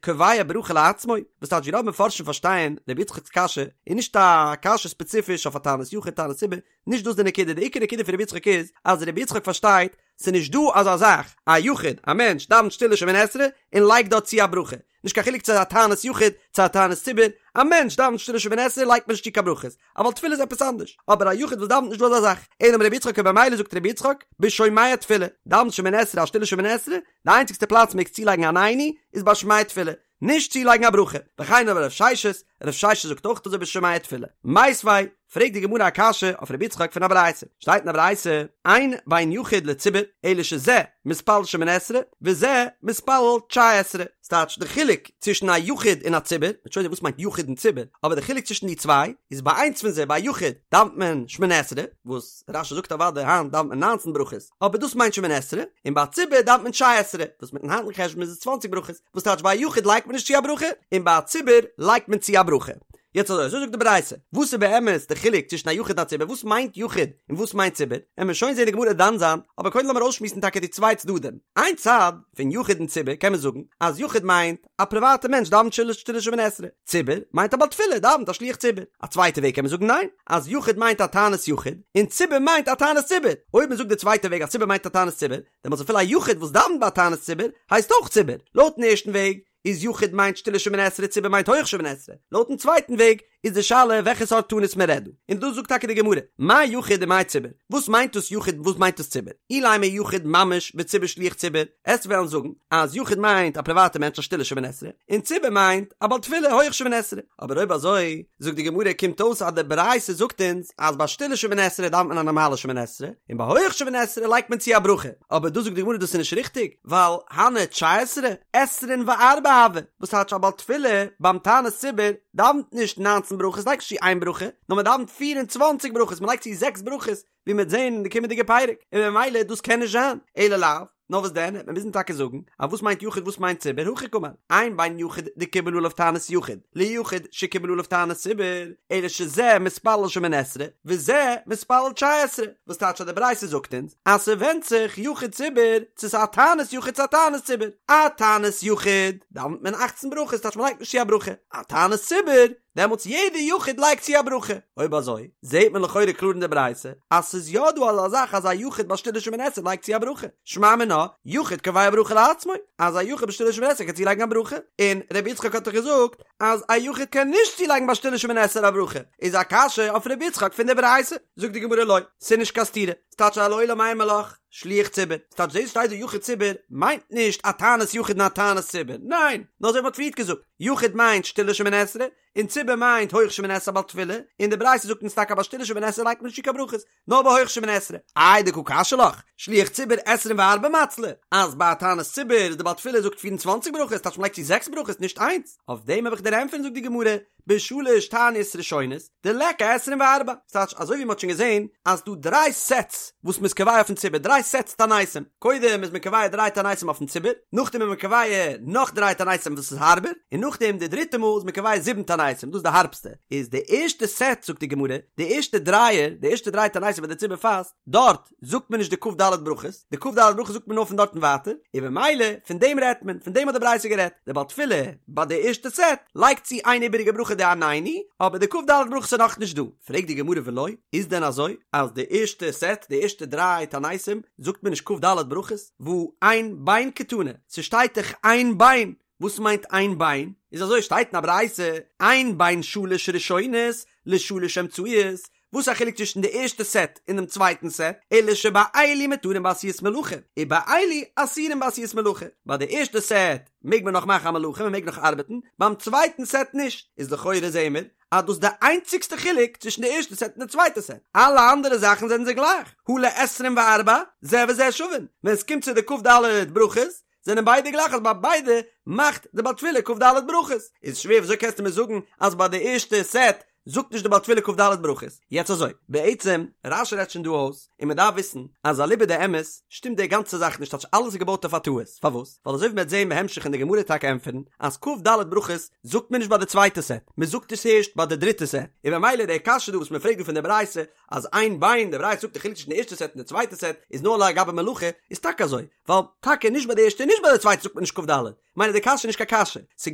קובע ברכה לעצמו, וואס טייטש ווי רוב מפרשים פארשטייען רבי יצחק'ס קשיא איז נישט א קשיא ספעציפיש אויף א תענית יחיד תענית ציבור, נישט דאס די נקודה, די עיקר נקודה פון רבי יצחק איז אז רבי יצחק פארשטייט ס'איז נישט דא אזא זאך א יחיד, א מענטש דאווענט שטילע שמונה עשרה און לייגט דארט צו א ברכה, נישט קיין חילוק צו א תענית יחיד צו א תענית ציבור, א מענטש דאווענט שטילע שמונה עשרה לייגט מען נישט צו קיין ברכות, א בעל תפילה איז עפעס אנדערש, אבער א יחיד וואס דאווענט נישט דא אזא זאך, אלא אמר רבי יצחק און במילא זאגט רבי יצחק, בשומע תפילה, דאווענט שמונה עשרה א שטילע שמונה עשרה, די איינציגסטע פלאץ מעגסט צולייגן עננו איז ביי שומע תפילה, נישט צולייגן א ברכה, וכן אמר רב ששת, רב ששת זאגט אויך אזוי בשומע תפילה. מיתיבי, פרעגט די גמרא א קשיא אויף רבי יצחק פון א ברייתא, שטייט אין א ברייתא, אין בין יחיד לציבור, אלא שזה מתפלל שמונה עשרה, וזה מתפלל תשע עשרה, ס'טייטש די חילוק צווישן א יחיד און א ציבור, מ'וועט שוין זען וואס מיינט יחיד און ציבור, אבער די חילוק צווישן די צוויי, איז ביי איינס פון זיי ביי א יחיד דאווענט מען שמונה עשרה, וואס רש"י זאגט אוודאי היינט דאווענט מען ניינצן ברכות, אבער דאס מיינט שמונה עשרה, און ביי א ציבור דאווענט מען תשע עשרה, וואס מיטן היינטיגן חשבון איז עס צוואנציג ברכות, וואס טייטש ביי א יחיד לייגט מען נישט צו א ברכה, און ביי א ציבור לייגט מען צו א ברכה. יעצט אזוי, אזוי זאגט די ברייתא, וואס איז באמת די חילוק צווישן א יחיד און א ציבור, וואס מיינט יחיד און וואס מיינט ציבור, עמיר שוין זעהן די גמרא דן זיין, אבער קודם לאמיר אויסשמועסן טאקע די צוויי צדדים, איין צד פון יחיד און ציבור קען מען זאגן אז יחיד מיינט א פריוואטע מענטש דאווענט שטילע שטילע שמונה עשרה, ציבור מיינט א בעל תפילה דאווענט א שליח ציבור, א צווייטע וועג קען מען זאגן ניין, אז יחיד מיינט א תענית יחיד און ציבור מיינט א תענית ציבור, אויב מען זאגט די צווייטע וועג אז ציבור מיינט א תענית ציבור, דעמאלטס אפילו א יחיד וואס דאווענט ביי א תענית ציבור הייסט אויך ציבור, לויטן ערשטן וועג איז יחיד מיינט שטילע שמונה עשרה ציבור מיינט הויך שמונה עשרה, לויטן צווייטן וועג איז די שאלה וועלכע סארט תענית מען רעדט דא, און דאס זאגט טאקע די גמרא, מאי יחיד ומאי ציבור, וואס מיינט דאס יחיד און וואס מיינט דאס ציבור, אילימא יחיד ממש וציבור שליח ציבור, עסט וועלן זאגן אז יחיד מיינט א פריוואטע מענטש א שטילע שמונה עשרה, און ציבור מיינט א בעל תפילה הויך שמונה עשרה, אבער אויב אזוי זאגט די גמרא קומט אויס אז די ברייתא זאגט אונז אז ביי שטילע שמונה עשרה דאווענט מען א נארמאלע שמונה עשרה, און ביי הויך שמונה עשרה לייגט מען צו א ברכה, אבער דא זאגט די גמרא דאס איז נישט ריכטיג, ווייל הני תשע עשרה, עשרין וארבע. הוה, וואס טייטש א בעל תפילה ביים תענית ציבור דאווענט נישט ניינצן ברכות לייגט נישט צו איין ברכה, נאר מען דאווענט פיר און צוואנציג ברכות מען לייגט צו זעקס ברכות, ווי מ'וועט זען אין די קומענדיגע פרק, און ממילא דאס קען נישט זיין, אלא לאו, נאר וואס דען, וועט מען מוזן טאקע זאגן, אז וואס מיינט יחיד וואס מיינט ציבור, הכי קאמר, אין בין יחיד דקיבל עליו תענית יחיד, ליחיד שקיבל עליו תענית ציבור, אלא שזה מתפלל שמונה עשרה, וזה מתפלל תשע עשרה, וואס טייטש אז די ברייתא זאגט אונז, אז ס'ווענדט זיך יחיד ציבור, צו ס'איז א תענית יחיד צו א תענית ציבור, א תענית יחיד, דאווענט מען אכצן ברכות, טייטש מ'לייגט נישט צו א ברכה, א תענית ציבור, דעמאלטס יעדע יחיד לייגט צו א ברכה. אויב אזוי, זעהט מען לכאורה קלאר אין די ברייתא אז ס'איז יא דא אזא זאך אז א יחיד ביי שטילע שמונה עשרה לייגט צו א ברכה. שמע מינה, יחיד קובע ברכה לעצמו, אז א יחיד ביי שטילע שמונה עשרה קען צולייגן א ברכה. און רבי יצחק האט דאך געזאגט אז א יחיד קען נישט צולייגן ביי שטילע שמונה עשרה א ברכה. איז א קשיא אויף רבי יצחק פון די ברייתא. זאגט די גמרא לא, ס'איז נישט קיין סתירה. ס'טייטש אז לעולם אימא לך, שליח ציבור. ס'טייטש דאס שטייט דא יחיד ציבור מיינט נישט א תענית יחיד און א תענית ציבור. ניין! נאר אזוי ווי מ'האט פריערט געזאגט. יחיד מיינט שטילע שמונה עשרה, און ציבור מיינט הויך שמונה עשרה בעל תפילה, און די ברייתא זאגט אונז טאקע ביי שטילע שמונה עשרה לייגט מען נישט צו קיין ברכות, נאר ביי הויך שמונה עשרה. איי דקא קשיא לך, שליח ציבור עשרים וארבע מצלי, אז ביי א תענית ציבור איז די בעל תפילה זאגט פיר און צוואנציג ברכות, טייטש מ'לייגט צו זעקס ברכות נישט איינס, אויף דעם האב איך דיר ענטפערן זאגט די גמרא, בשלש תעניות ראשונות, דליכא עשרים וארבע, ס'טייטש אזוי ווי מ'האט שוין געזען אז ס'דא דריי סעטס וואס מ'איז קובע אויפן ציבור, דריי סעטס תעניתים, קודם איז מען קובע דריי תעניתים אויפן ציבור, נאכדעם איז מען קובע נאך דריי תעניתים וואס איז הארבער, און נאכדעם די דריטע מאל איז מען קובע זיבן תעניתים, דאס איז די הארבסטע, איז די ערשטע סעט זאגט די גמרא, די ערשטע דרייער, די ערשטע דריי תעניתים ווען די ציבור פאסט, דארט זאגט מען נישט די כ"ד ברכות, די כ"ד ברכות זאגט מען נאר פון דארט און ווייטער, און במילא פון דעם רעדט מען, פון דעם האט די ברייתא גערעדט, דער בעל תפילה ביי די ערשטע סעט לייגט צו איין איבעריגע ברכה די עננו, אבער די כ"ד ברכות איז נאכנישט דא. פרעגט די גמרא ולא, איז דען אזוי אז די ערשטע סעט, די ערשטע דריי תעניתים, זאגט מען נישט כ"ד ברכות, והא אין בין קתני, ס'שטייט דאך אין בין, וואס מיינט אין בין? איז אזוי שטייט אין א ברייתא, אין בין שלש ראשונות לשלש אמצעיות, וואס איז א חילוק צווישן די ערשטע סעט און דעם צווייטן סעט, אלא שבאלו מותרין בעשיית מלאכה, ובאלו אסורין בעשיית מלאכה, ביי די ערשטע סעט מעג מען נאך מאכן א מלאכה, מען מעג נאך ארבעטן, ביים צווייטן סעט נישט, איז לכאורה זעהן מיר אז דאס איז די איינציגסטע חילוק צווישן די ערשטע סעט און די צווייטע סעט, אלע אנדערע זאכן זענען זיי גלייך, הא לעשרים וארבע, זה וזה שווין, ווען עס קומט צו די כ"ד ברכות, זענען ביידע גלייך אז ביי ביידע מאכט די בעל תפילה כ"ד ברכות, איז שווער וויאזוי קענסטו מיר זאגן אז ביי די ערשטע סעט זאגט נישט די בעל תפילה כ"ד ברכות? יעצט אזוי, בעצם רש"י רעדט שוין דא אויס, און מען דארף וויסן אז אליבא דאמת שטימט די גאנצע זאך נישט טייטש אלעס איז געבויט אויף א טעות, פארוואס? ווייל אזוי ווי מען וועט זען בהמשך אין די גמרא טאקע ענטפערן אז כ"ד ברכות זאגט מען נישט ביי די צווייטע סעט, מען זאגט עס הערשט ביי די דריטע סעט, און במילא די קשיא דא וואס מען פרעגט דא פון די ברייתא אז אין בין, די ברייתא זאגט די חילוק צווישן די ערשטע סעט און די צווייטע סעט איז נאר לגבי מלאכה, איז טאקע אזוי, ווייל טאקע נישט ביי די ערשטע און נישט ביי די צווייטע זאגט מען נישט כ"ד, מילא די קשיא איז נישט קיין קשיא, ס'איז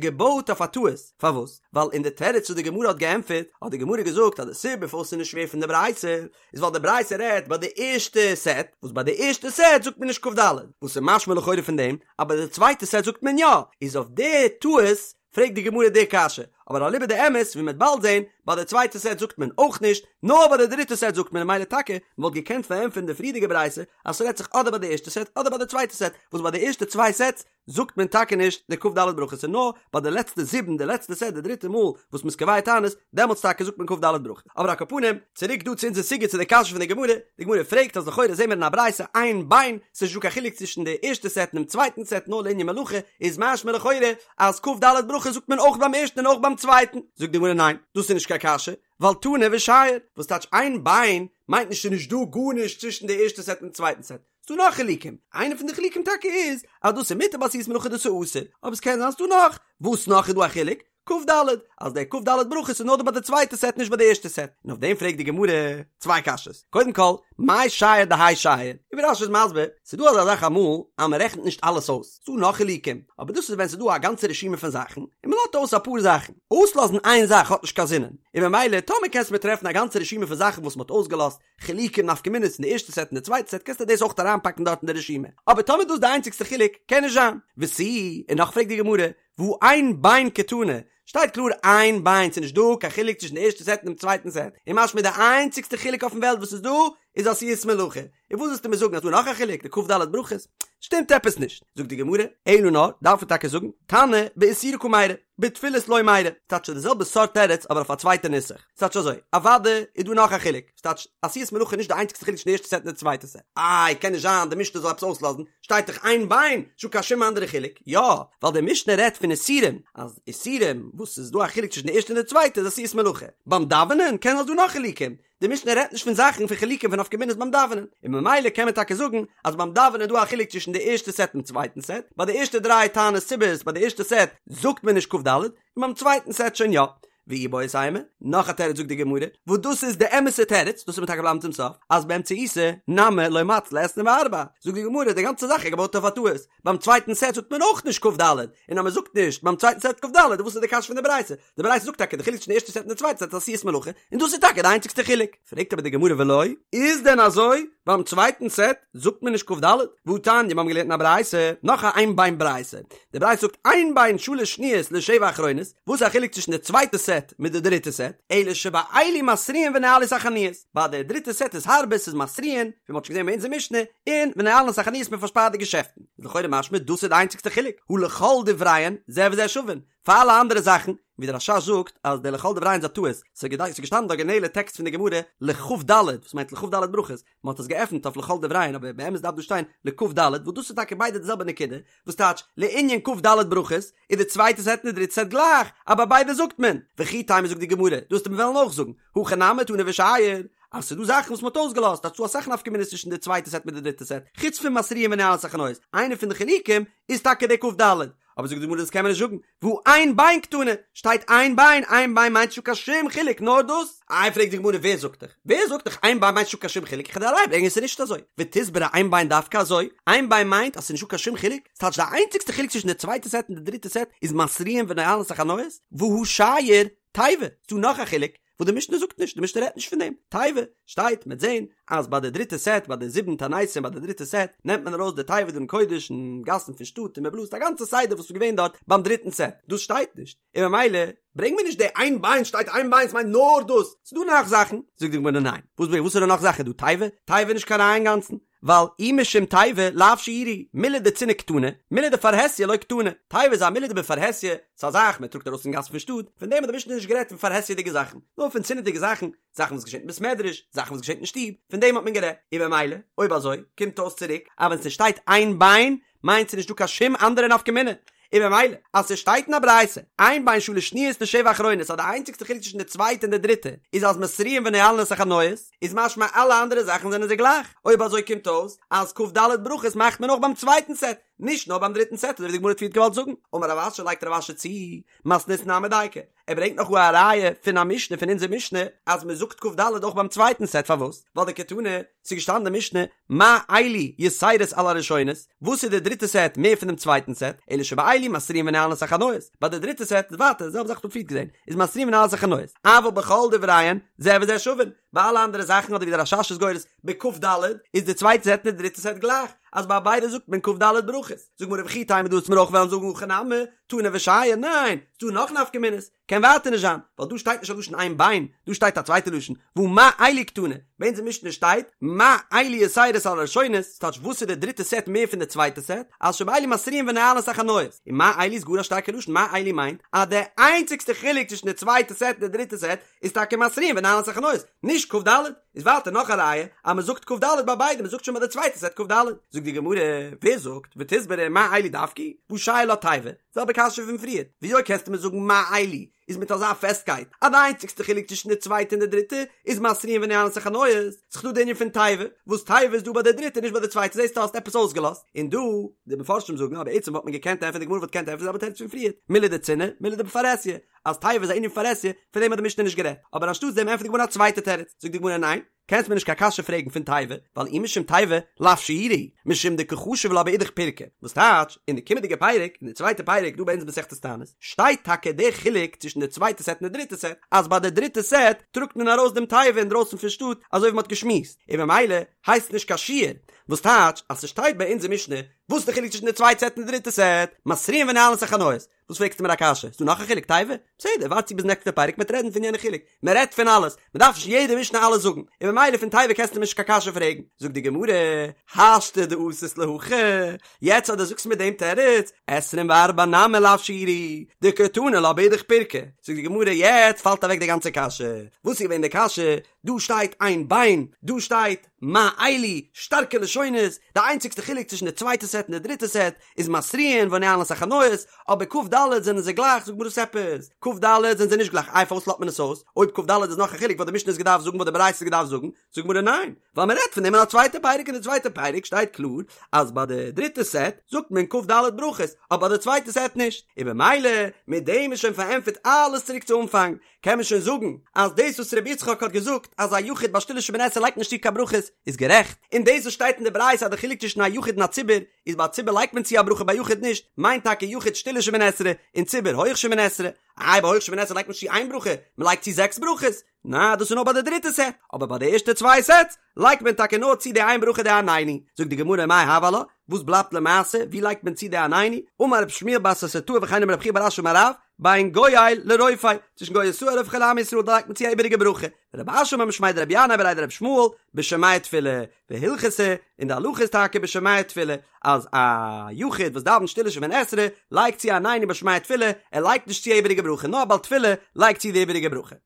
געבויט אויף א טעות, פארוואס? ווייל אין די תירוץ וואס די גמרא האט געענטפערט, האט די גמרא געזאגט אז די סיבה פארוואס ס'איז נישט שווער פון די ברייתא, איז ווייל די ברייתא רעדט ביי די ערשטע סעט, וואס ביי די ערשטע סעט זאגט מען נישט כ"ד, וואס איז משמע לכאורה פון דעם אז ביי די צווייטע סעט זאגט מען יא, איז אויף די טעות פרעגט די גמרא די קשיא, אבער אליבא דאמת ווי מ'וועט באלד זען, ביי די צווייטע סעט זאגט מען אויך נישט, נאר ביי די דריטע סעט זאגט מען, ממילא טאקע, מ'וואלט געקענט פארענטפערן די פריערדיגע ברייתא אז ס'רעדט זיך אדער ביי די ערשטע סעט אדער ביי די צווייטע סעט, וואס ביי די ערשטע צוויי סעטס זאגט מען טאקע נישט די כ"ד ברכות און נאר ביי די לעצטע זיבן, די לעצטע סעט די דריטע מאל וואס מ'איז קובע תענית, דעמאלטס טאקע זאגט מען כ"ד ברכות. אבער על כל פנים, צוריק דא צו אונזער סוגיא צו די קשיא פון די גמרא, די גמרא פרעגט אז לכאורה זעהן מיר אין א ברייתא אין בין, ס'איז נישט דא קיין חילוק צווישן די ערשטע סעט און דעם צווייטן סעט נאר לענין מלאכה, איז משמע לכאורה אז כ"ד ברכות זאגט מען אויך ביים ערשטן און אויך ביים צווייטן, זאגט די גמרא ניין, דאס איז נישט קיין קשיא, ווייל תנא ושייר, וואס טייטש אין בין, מיינט נישט ס'איז נישט דא גארנישט צווישן די ערשטע סעט און צווייטן סעט, ס'דא נאך חילוקים, איינע פון די חילוקים טאקע איז אז דאס איז מותר בעשיית מלאכה דאס איז אסור, אבער ס'קען זיין ס'דא נאך, וואס נאך איז דא א חילוק? כ"ד, אז דער כ"ד ברכות איז נאר דא ביי די צווייטע סעט נישט ביי די ערשטע סעט, און אויף דעם פרעגט די גמרא צוויי קשיות, קודם כל, מאי שייר דהאי שייר, און ווי רש"י איז מסביר, ס'איז דא אזא זאך אמאל אז מ'רעכנט נישט אלעס אויס, ס'דא נאך חילוקים, אבער דאס איז ווען ס'איז דא א גאנצע רשימה פון זאכן, און מ'לאזט אויס אפאר זאכן, אויסלאזן איין זאך האט נישט קיין זינען, און ממילא טאמער קענסט מיר טרעפן א גאנצע רשימה פון זאכן וואס מ'האט אויסגעלאזט, חילוקים נפקא מינות אין די ערשטע סעט און די צווייטע סעט קענסטו דאס אויך אריינפאקן דארט אין די רשימה, אבער טאמער דאס איז די איינציגסטע חילוק, קען נישט זיין. ותו, און נאך פרעגט די גמרא, והא אין בין קתני, שטייט קלאר אין בין, ס'איז נישט דא קיין חילוק צווישן די ערשטע סעט און דעם צווייטן סעט, און משמע די איינציגסטע חילוק אויפן וועלט וואס איז דא, איז עשיית מלאכה, און וואס ווילסטו מיר זאגן אז דא נאך א חילוק די כ"ד ברכות? שטימט עפעס נישט. זאגט די גמרא, אלא נאר, דארף מען טאקע זאגן, תנא באיסורי קא מיירי, בתפילות לא מיירי, ס'טייטש די זעלבע סארט תירוץ אבער אויף א צווייטע נוסח. ס'טייטש אזוי, אוודאי איז דא נאך א חילוק, ס'טייטש עשיית מלאכה איז נישט די איינציגסטע חילוק צווישן די ערשטע סעט און די צווייטע סעט. איי, קען נישט זיין די משנה זאל עפעס אויסלאזן, שטייט דאך אין בין, נישטא קיין שום אנדערע חילוק. יא, ווייל די משנה רעדט פון איסורים, אז איסורים וואס ס'איז דא א חילוק צווישן די ערשטע און די צווייטע איז עשיית מלאכה. ביים דאווענען קען זיין ס'דא נאך חילוקים, די משנה רעדט נישט פון זאכן פון חילוקים פון נפקא מינות ביים דאווענען, און ממילא קען מען טאקע זאגן אז ביים דאווענען איז דא א חילוק צווישן די ערשטע סעט און צווייטן סעט, ביי די ערשטע דריי תענית ציבור'ס ביי די ערשטע סעט זאגט מען נישט כ"ד, און ביים צווייטן סעט שוין יא. ואיבעית אימא, נאך א תירוץ זאגט די גמרא, וואס דאס איז די אמת'ע תירוץ, דאס וועט מען טאקע בלייבן צום סוף, אז באמצעייתא נמי לא מצלי עשרים וארבע, זאגט די גמרא די גאנצע זאך איז געבויט אויף א טעות, ביים צווייטן סעט זאגט מען אויך נישט כ"ד, און אז מען זאגט נישט ביים צווייטן סעט כ"ד, וואס איז די קשיא פון די ברייתא? די ברייתא זאגט טאקע די חילוק צווישן די ערשטע סעט און די צווייטע סעט איז עשיית מלאכה, און דאס איז טאקע די איינציגסטע חילוק. פרעגט אבער די גמרא ולא, איז דען אזוי? ביים צווייטן סעט זאגט מען נישט כ"ד? והתניא, מיר האבן געלערנט אין א ברייתא, נאך א אין בין ברייתא, די ברייתא זאגט אין בין שלש שניות לשבע אחרונות, וואס איז א חילוק צווישן די צווייטע סעט מיט די דריטע סעט? אלא שבאלו מתריעין ונועלין את החנויות, ביי די דריטע סעט איז הארבער, ס'איז מתריעין, ווי מ'האט שוין געזען ביי אונזער משנה, און ונועלין את החנויות מען פארשפארט די געשעפטן. איז לכאורה משמע דאס איז די איינציגסטע חילוק, הא לכל דבריהן זה וזה שווין, פאר אלע אנדערע זאכן, ווי דער רש"ש זאגט אז דער לכל דבריהן איז א טעות, ס'איז געשטאנען די אריגינעלע טעקסט פון די גמרא לכ"ד, וואס מיינט לכ"ד ברכות, מען האט עס געעפנט אויף לכל דבריהן אבער באמת דארף דא שטיין לכ"ד, וואס דאס איז טאקע ביידע די זעלבע נקודה, וואס טייטש לענין כ"ד ברכות, איז די צווייטע סעט און די דריטע סעט גלייך, אבער ביידע זאגט מען, וכי תימא זאגט די גמרא, דו וועסט מיר וועלן אויך זאגן, הכא נמי תנא ושייר, אז ס'איז דא זאכן וואס מ'האט אויסגעלאזט, אז ס'דא אסאך נפקא מינות צווישן די צווייטע סעט מיט די דריטע סעט, חוץ פון מתריעין ונועלין את החנויות, איינע פון די חילוקים איז טאקע די כ"ד, אבער זאגט די גמרא דאס קען מען נישט זאגן, והא אין בין קתני, שטייט אין בין, אין בין מיינט נישטא קיין שום חילוק נאר דאס, איי פרעגט די גמרא ווער זאגט דיך, ווער זאגט דיך אין בין מיינט נישטא קיין שום חילוק, איך וועל דיר א ראיה ברענגען עס איז נישט אזוי, ותסברא אין בין דווקא אזוי, אין בין מיינט אז ס'איז נישטא קיין שום חילוק, ס'טייטש די איינציגסטע חילוק צווישן די צווייטע סעט און די דריטע סעט איז מתריעין ונועלין את החנויות, והא שייר תיבה, ס'דא נאך א חילוק, וואס די משנה זאגט נישט, די משנה רעדט נישט פון דעם, תיבה, שטייט, מ'עט זען, אז ביי די דריטע סעט, ביי די זיבן תעניתים ביי די דריטע סעט, נעמט מען ארויס די תיבה דעם קודש אין גאסן פון שטאט און מ'בלאזט א גאנצע סדר וואס איז געווען דארט ביים דריטן סעט, דאס שטייט נישט, און ממילא ברענג מיר נישט די אין בין שטייט אין בין ס'מיינט נאר דאס, ס'דא נאך זאכן, זאגט די גמרא ניין, וואס וואס איז די נאך זאכן דא תיבה? תיבה איז נישט קיין ראיה אינגאנצן, ווייל אי משום תיבה לאו שיורא הוא, מילי דצינעא קתני, מילי דפרהסיא לא קתני, תיבה איז א מילי דבפרהסיא, ס'איז א זאך מען טראגט ארויס אין גאס פון שטאט, פון דעם האט די משנה נישט גערעדט פון פרהסיא'דיגע זאכן, נאר פון צנעא'דיגע זאכן, זאכן וואס געשעט אין בית מדרש, זאכן וואס געשעט אין שטוב, פון דעם האט מען גערעדט, און במילא, אויב אזוי, קומט אויס צוריק, אז ווען ס'שטייט אין בין, מיינט ס'נישט דא קיין שום אנדערע נפקא מינה, און במילא, אז ס'שטייט אין א ברייתא, אין בין שלש שניות לשבע אחרונות אז די איינציגסטע חילוק צווישן די צווייטע און די דריטע איז אז מתריעין ונועלין את החנויות, איז משמע אלע אנדערע זאכן זענען זיי גלייך, אויב אזוי קומט אויס אז כ"ד ברכות מאכט מען אויך ביים צווייטן סעט, נישט נאר ביים דריטן סעט אזוי ווי די גמרא האט פריערט געוואלט זאגן. אמר רב אשי לייגט רב אשי צו, מתניתין נמי דייקא, ער ברענגט נאך א ראיה פון א משנה פון אונזער משנה אז מען זאגט כ"ד אויך ביים צווייטן סעט פארוואס? ווייל דקתני, ס'איז געשטאנען אין די משנה מה אלו יתירות על הראשונות, וואס איז די דריטע סעט מער פון דעם צווייטן סעט, אלא שבאלו מתריעין ונועלין את החנויות, ביי די דריטע סעט איז ווייטער די זעלבע זאך וואס מ'האט פריערט געזען, איז מתריעין ונועלין את החנויות, אבל בכל דבריהן זה וזה שווין, ביי אלע אנדערע זאכן אדער ווי דער רש"ש איז גורס בכ"ד איז די צווייטע סעט און די דריטע סעט גלייך, אז ביי ביידע זאגט מען כ"ד ברכות, זאגט גמרא וכי תימא דו וועסט מיר אויך וועלן זאגן הכא נמי, תנא ושייר, ניין, ס'דא נאך נפקא מינות, קען ווייטער נישט זיין, ווייל דא שטייט נישט א לשון אין בין, דא שטייט א צווייטע לשון, והא מה אלו קתני, ביי אונזער משנה שטייט, מה אלו יתירות על הראשונות, ס'טייטש וואס איז די דריטע סעט מער פון די צווייטע סעט, אז שבאלו מתריעין ונועלין את החנויות, און מה אלו איז גאר א שטארקע לשון, מה אלו מיינט, אז די איינציגסטע חילוק צווישן די צווייטע סעט און די דריטע סעט, איז טאקע מתריעין ונועלין את החנויות, נישט כ"ד, איז ווייטער נאך א ראיה אז מען זאגט כ"ד ביי ביידע, מען זאגט שוין ביי די צווייטע סעט כ"ד. זאגט די גמרא, ווער זאגט, ותסברא מה אלו דווקא, והא שייר לה תיבה, זעלבע קשיא פון פריער, וויאזוי קענסטו מיר זאגן מה אלו איז מיט אזא פעסטקייט אז די איינציגסטע חילוק צווישן די צווייטע און די דריטע איז מתריעין ונועלין את החנויות, ס'איז דא די ענין פון תיבה, וואס תיבה איז דא ביי די דריטע נישט ביי די צווייטע זעסטו האסט עפעס אויסגעלאזט, און דא, די מפרשים זאגן אז בעצם וואלט מען געקענט ענטפערן די גמרא וואלט געקענט ענטפערן די זעלבע תירוץ פון פריער, מילי דצינעא, מילי דבפרהסיא, אז תיבה איז א ענין פרהסיא, פון דעם האט די משנה נישט גערעדט, אבער אנשטאטס דעם ענטפערט די גמרא א צווייטע תירוץ, זאגט די גמרא ניין, קענסט מיר נישט קיין קשיא פרעגן פון תיבה, ווייל אי משום תיבה לאו שיורא הוא, משום דקא חשיב לה באידך פירקא, וואס טייטש, אין די קומענדיגע פרק, אין די צווייטע פרק דא ביי אונז מסכת תענית, שטייט טאקע דער חילוק צווישן די צווייטע סעט און די דריטע סעט, אז ביי די דריטע סעט טראגט מען ארויס דעם תיבה אינדרויסן פון שטאט, אזוי ווי מען האט געשמועסט, און ממילא הייסט עס נישט קיין שיור, וואס טייטש, אז ס'שטייט ביי אונז אין משנה, וואס איז די חילוק צווישן די צווייטע סעט און די דריטע סעט, מתריעין ונועלין את החנויות. וואס פרעגסטו מיר א קשיא? ס'דא נאך א חילוק תיבה? בסדר, ווארט צו ביז נעקסטע פרק מ'עט רעדן פון יענע חילוק. מען רעדט פון אלעס, מען דארף נישט יעדע משנה אלעס זאגן, און ממילא פון תיבה קענסטו מיר נישט קיין קשיא פרעגן. זאגט די גמרא, השתא דאתית להכי, יעצט אז דו זאגסט מיר דעם תירוץ, עשרים וארבע נמי לאו שיעורא הוא, דקתני לה באידך פירקא, זאגט די גמרא, יעצט פאלט אוועק די גאנצע קשיא, וואס איז געווען די קשיא? דא שטייט אין בין, דא שטייט מה אלו, שטארקע לשונות, די איינציגסטע חילוק צווישן די צווייטע סעט און די דריטע סעט איז מתריעין ונועלין את החנויות, אבער כ"ד זענען זיי גלייך, זאגט גמרא וואס עפעס? כ"ד זענען זיי נישט גלייך, איי פארוואס לאזט מען עס אויס? אויב כ"ד איז נאך א חילוק וואלט די משנה עס געדארפט זאגן וואלט די ברייתא עס געדארפט זאגן, זאגט גמרא ניין, ווייל מען רעדט פון דעם אין א צווייטע פרק אין די צווייטע פרק שטייט קלאר אז ביי די דריטע סעט זאגט מען כ"ד ברכות אבער ביי די צווייטע סעט נישט, און במילא מיט דעם איז שוין פארענטפערט אלעס צוריק צו אנפאנג, קען מען שוין זאגן אז דאס וואס רבי יצחק האט געזאגט אז א יחיד ביי שטילע שמונה עשרה לייגט נישט צו קיין ברכות איז גערעכט, און דאס וואס שטייט אין די ברייתא אז די חילוק צווישן א יחיד און א ציבור איז ביי א ציבור לייגט מען צו א ברכה ביי יחיד נישט, מיינט טאקע יחיד שטילע שמונה עשרה און ציבור הויך שמונה עשרה, איי ביי הויך שמונה עשרה לייגט מען נישט צו איין ברכה, מען לייגט צו זעקס ברכות, נא דאס איז נאר ביי די דריטע סעט, אבער ביי די ערשטע צוויי סעטס לייגט מען טאקע נאר צו די איין ברכה די עננו, זאגט די גמרא מאי הוי עלה, וואס בלייבט למעשה, ווי לייגט מען צו די עננו, אמר רב שמואל בר ססרטאי וכן אמר רב חייא בר אשי אמר רב, בין גואל לרופא, צווישן גואל ישראל לרופא חולי עמו ישראל דא לייגט מען צו א איבעריגע ברכה, ורב אשי אמר משמיה דרבי ינאי בריה דרבי ישמעאל, בשומע תפילה, והלכתא, און די הלכה איז טאקע בשומע תפילה, אז א יחיד וואס דאווענט שטילע שמונה עשרה, לייגט צו עננו בשומע תפילה, ער לייגט נישט צו א איבעריגע ברכה, נאר א בעל תפילה לייגט צו די איבעריגע ברכה.